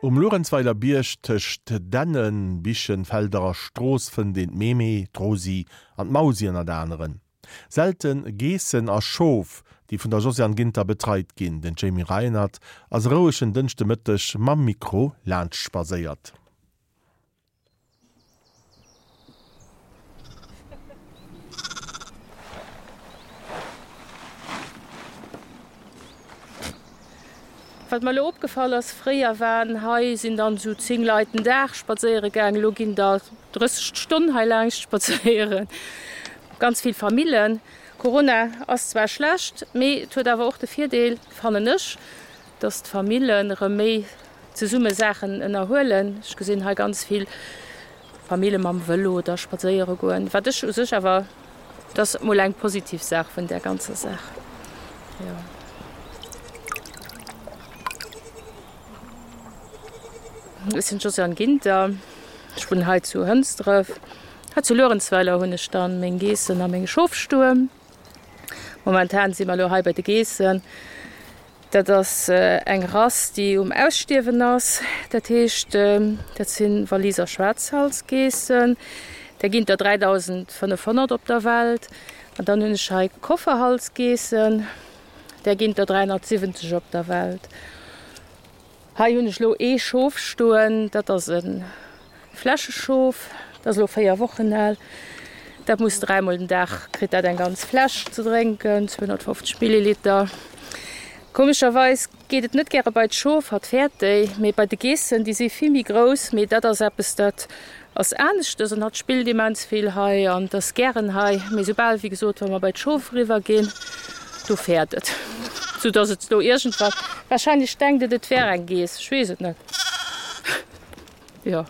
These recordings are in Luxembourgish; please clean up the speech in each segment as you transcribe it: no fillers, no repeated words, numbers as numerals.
Um Luerenzweiler Bierg tëscht Dännen, Bichen, Felder a Strooss fënnt een d'Mémé, d'Rosi an d'Mausi ënnert aneren. Selte Geessen a Schof, déi vun der Josiane Ginter betreit ginn. Den Jamie Reinert ass e rouegen Dënschdemëtteg mam Mikro laanscht spadséiert. Wat mer elo opgefall ass, fréier waren hei sinn dann esou 10 Leit den Dag spadséiere gaang, elo ginn der 30 d'Stonn hei laangscht spadséieren. Ganz vill Famillen. Corona ass zwar schlecht, mee et huet awer och de Virdeel, fannen ech, dass d'Famillen erëm méi zesumme Saachen ënnerhuelen. Ech gesinn hei ganz vill Famille mam Vëlo da spadséiere goen, wat ech u sech awer, dat ass mol eng positiv Saach vun där ganzer Saach, jo. Ech sinn d'Josiane Ginter, ech wunnen hei zu Hënsdref. Hei zu Luerenzweiler hunn ech dann meng Geessen a meng Schof stoen. Momentan si mer elo hei bei de Geessen. Dat ass eng Rass, déi um Ausstierwen ass. Dat heescht, dat si Waliser Schwaarzhalsgeessen. Där ginn der 3.500 op der Welt. An dann hunn ech hei Kofferhalsgeessen, där ginn der 370 op der Welt. Hei hunn ech elo ee Schof stoen, dat ass e Fläscheschof, dat ass elo 4 Wochen al. Dat muss dräimol den Dag, kritt dat eng ganz Fläsch ze drénken, 250 Milliliter. Komescherweis geet et net gäre bei d'Schof, hatt fäert déi, mee bei de Geessen, déi si vill méi grouss, mee dat ass eppes, dat ass aneschtes an hatt spillt immens vill hei an et ass gären hei, mee soubal, wéi gesot, wa mer bei d'Schof eriwwer ginn, do fäert et, sou dass et elo iergendwann, wahrscheinlech denkt et, et wär eng Geess, ech weess et net, jo.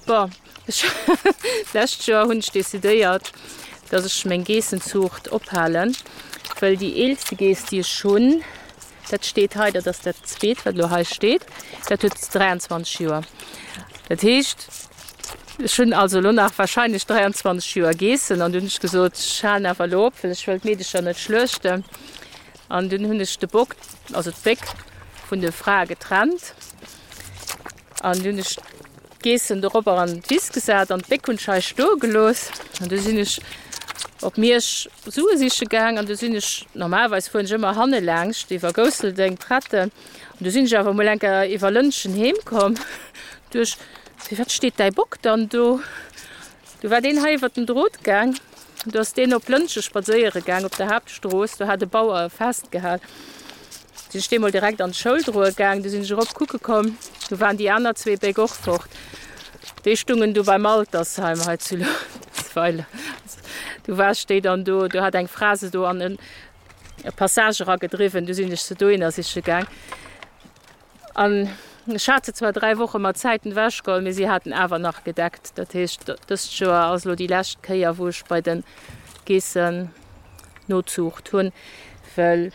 Bon, ech d'lescht Joer hunn ech decidéiert, dass ech meng Geessenzuucht ophalen, well déi eelste Geess, déi ech hunn, dat steet hei, dat ass dat zweet, wat elo hei steet, dat huet 23 Joer. Dat heescht, Ech hunn also elo nach wahrscheinlech 23 Joer Geessen an dunn hunn ech gesot, ech halen awer elo op, well ech wëll d'Meedecher net schluechten. An dunn hunn ech de Bock, also d'Béck vun de Frae getrennt an dunn hunn ech d'Geessen doropper an d'Wiss gesat an d'Béck hunn ech hei stoe gelooss. An du sinn ech op Miersch Sue siche gaang an du sinn ech, normalerweis fueren ech ëmmer hanne laangscht iwwer Gousseldeng, Pretten, an du sinn ech awer emol eng Kéier iwwer Lëntgen heem komm duerch Firwat steet däi Bock dann do? Du war deen hei iwwer den Drot gaang. Du ass deen op Lëntge spadséiere gaang op der Haaptstrooss. Do hat e Bauer e festgehal. Sinn ech dee mol direkt an d'Schoul droe gaang. Du sinn ech erop kucke komm. Du waren déi aner zwee Béck och fort. Déi stungen du beim Altersheim hei zu Luerenzweiler. Du war ech déi dann do. Do hat eng Fra se do an e Passage eragedriwwen. Du sinn ech se dohinner siche gaang. An ech hat se zwar 3 Woche mat Zäiten ewechgeholl, mee si haten awer nach gedeckt. Dat heescht, dëst Joer ass elo déi lescht Kéier, wou ech bei de Geessen Nozuucht hunn, well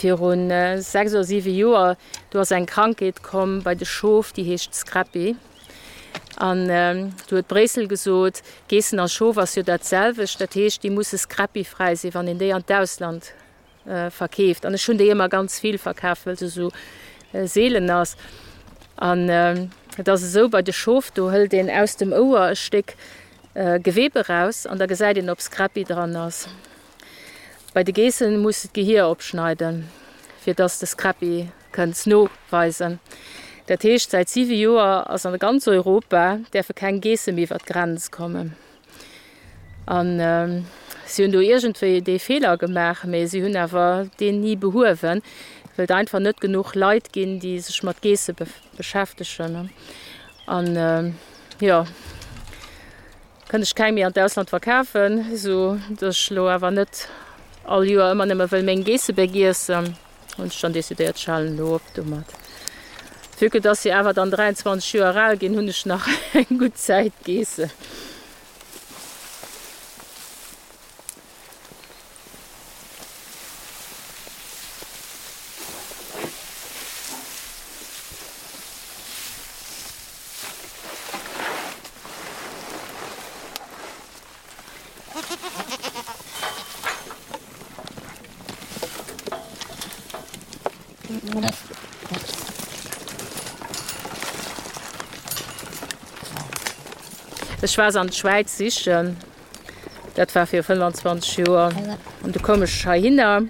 viru 6 oder 7 Joer, do ass eng Krankheet komm bei de Schof, déi heescht Scrapie. An do huet Bréissel gesot, Geessen a Schof ass jo dat selwecht, dat heescht, déi musse scrapie-fräi sinn, wann een déi an d'Ausland verkeeft an ech hunn déi ëmmer ganz vill verkaf, wëll se esou seelen ass. An et ass esou bei de Schof, do hëlt een aus dem Ouer e Stéck Gewebe raus an da gesäit een, ob Scrapie dran ass. Bei de Geessen muss de d'Gehier opschneiden, fir dass de Scrapie kënns noweisen. Dat heescht, säit siwe Joer ass an ganz Europa däerfe keng Geesse méi iwwer d'Grenz kommen. An si hunn do iergendwéi dee Feeler gemaach, mee si hunn awer deen ni behuewen, well et einfach net genuch Leit ginn, déi sech mat Geesse beschäftegen. An jo, kënnt ech keng méi an d'Ausland verkafen, esou datt ech elo awer net all Joer ëmmer nëmme wëll meng Geessebéck iessen. Hunn ech dann decidéiert, ech halen elo op domat. Vue que dass si awer dann 23 Joer al ginn, hunn ech nach eng gutt Zäit Geessen. Ech war se an d'Schwäiz sichen, dat war viru 25 Joer, an du koum ech heihinner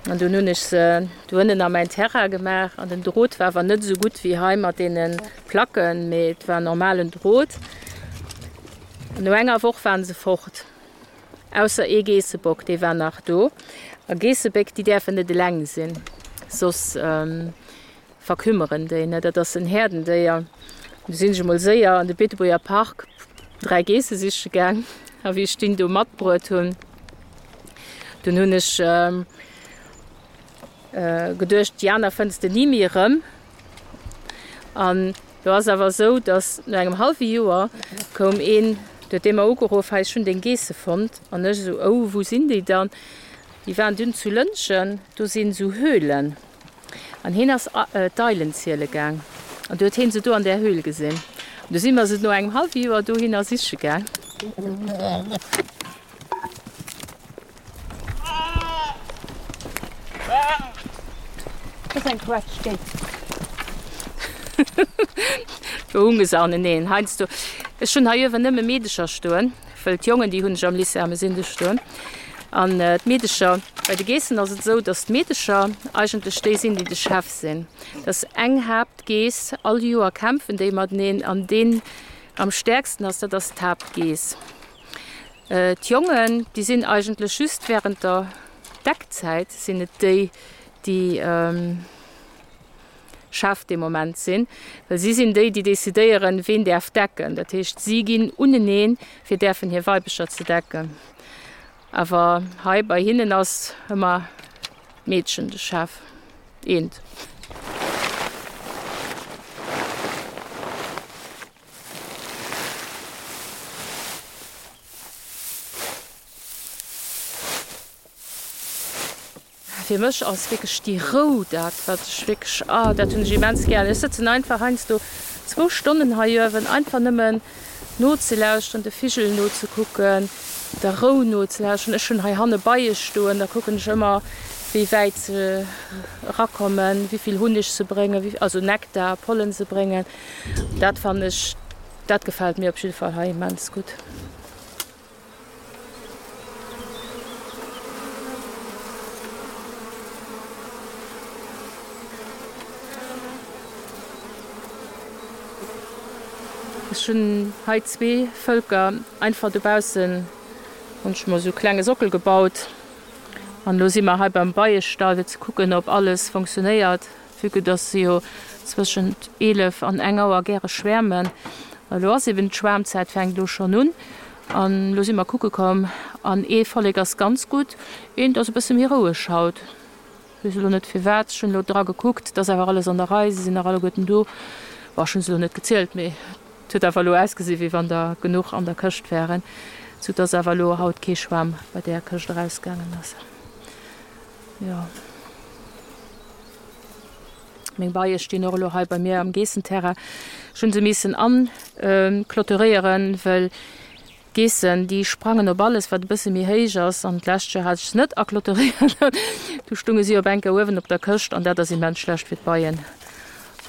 an dunn hunn ech se do ënnen a mäin Terrain gemaach an den Drot war awer net esou gutt wéi hei mat deene Placken, mee et war normalen Drot. An no enger Woch waren se fort, ausser ee Geessebock, dee war nach do. A Geessebéck, déi däerfen net eleng sinn, soss verkümmeren déi, ne? Dat ass en Häerdendéier. Du sinn ech emol séier an de Beetebuerger Park 3 Geesse siche gaang. A wéi ech deen do matbruet hunn, dunn hunn ech geduecht, déi aner fënns de ni méi erëm. An do ass awer esou, datt no engem hallwe Joer koum een, du huet dee mer ugeruff, hei ech hunn deng Geesse fonnt. An ech esou, oh wou sinn déi dann? Déi waren dunn zu Lëntgen, do sinn esou Höhlen. An hien ass d'Eilen ziele gaang an du huet hien se do an där Höhl gesinn. An du si mer se no engem hallwe Joer dohinner siche gaang. Do hunge se aneneen. Heiansdo, ech hunn hei uewen nëmme Meedecher stoen, wëll d'Jongen, déi hunn ech am Lycée Ermesinde stoen. An d'Meedecher, bei de Geessen ass et esou, datt d'Meedecher eigentlech déi sinn, déi de Chef sinn. Dat ass eng Haaptgeess, all Joer kämpfen déi mateneen an deen am stäerksten ass, dat ass d'Haaptgeess. D'Jongen, déi sinn eigentlech just wärend der Deckzäit sinn et déi, déi Chef dee Moment sinn, well si sinn déi, déi decidéieren, ween däerf decken. Dat heescht, si ginn uneneen, fir däerfen hir Weibecher ze decken. Awer hei bei hinnen ass ëmmer d'Meedchen de Chef. Eent. Fir mech ass wierklech déi Rou dat, wat ech wierklech, ah, dat hunn ech immens gär. Ech sëtzen einfach heiansdo zwou Stonnen hei uewen, einfach nëmmen nozelauschteren, de Vigel nozekucken, der Rou nozelauschteren. Ech hunn hei hanne Beie stoen, da kucken ech ëmmer, wéi wäit se erakommen, wéi vill Hunneg se bréngen, also Nektar, Pollen se bréngen. Dat fannen ech, dat gefält mir op jidde Fall hei immens gutt. Ech hunn hei zwee Vëlker einfach dobaussen hunn ech mer esou klenge Sockel gebaut an elo si mer hei beim Beiestall fir ze kucken ob alles funktionéiert. Vue que dass se jo zwëschent 11 an eng Auer gäre schwäermen. Elo ass eben d'Schwäermzäit, fänkt elo schonn un. An elo si mer kucke komm an ee Vollek ass ganz gutt, eent ass e bësse méi roueg haut. Weess elo net firwat. Ech hunn elo dra gekuckt, et ass awer alles an der Rei, se sinn nach alleguerten do. Bon, ech hunn se elo net gezielt, mee et huet awer elo ausgesi wéi wann der genuch an der Këscht wären, sou dass awer elo haut kee Schwam bei där Këscht erausgaangen ass. Jo. Meng Beie stinn och elo hei bei mir am Geessenterrain. Ech hunn se missen anclôturéieren, well d'Geessen, déi sprangen op alles, wat e bësse méi héich ass. An d'lescht Joer hat ech se net aclôturéiert. Du stunge si op eng Kéier uewen op der Këscht an dat ass immens schlecht fir d'Beien.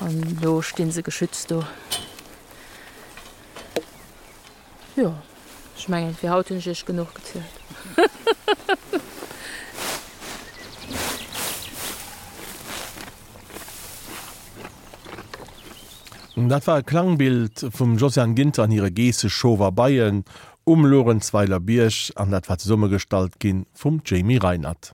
An elo sti se geschützt do. Jo, ech mengen fir haut hunn ech iech genuch gezielt. Dat war e Klangbild vum Josiane Ginter an hire Geesseschof a Beien um Luerenzweiler Bierg an dat war zesummegestallt gi vum Jamie Reinert.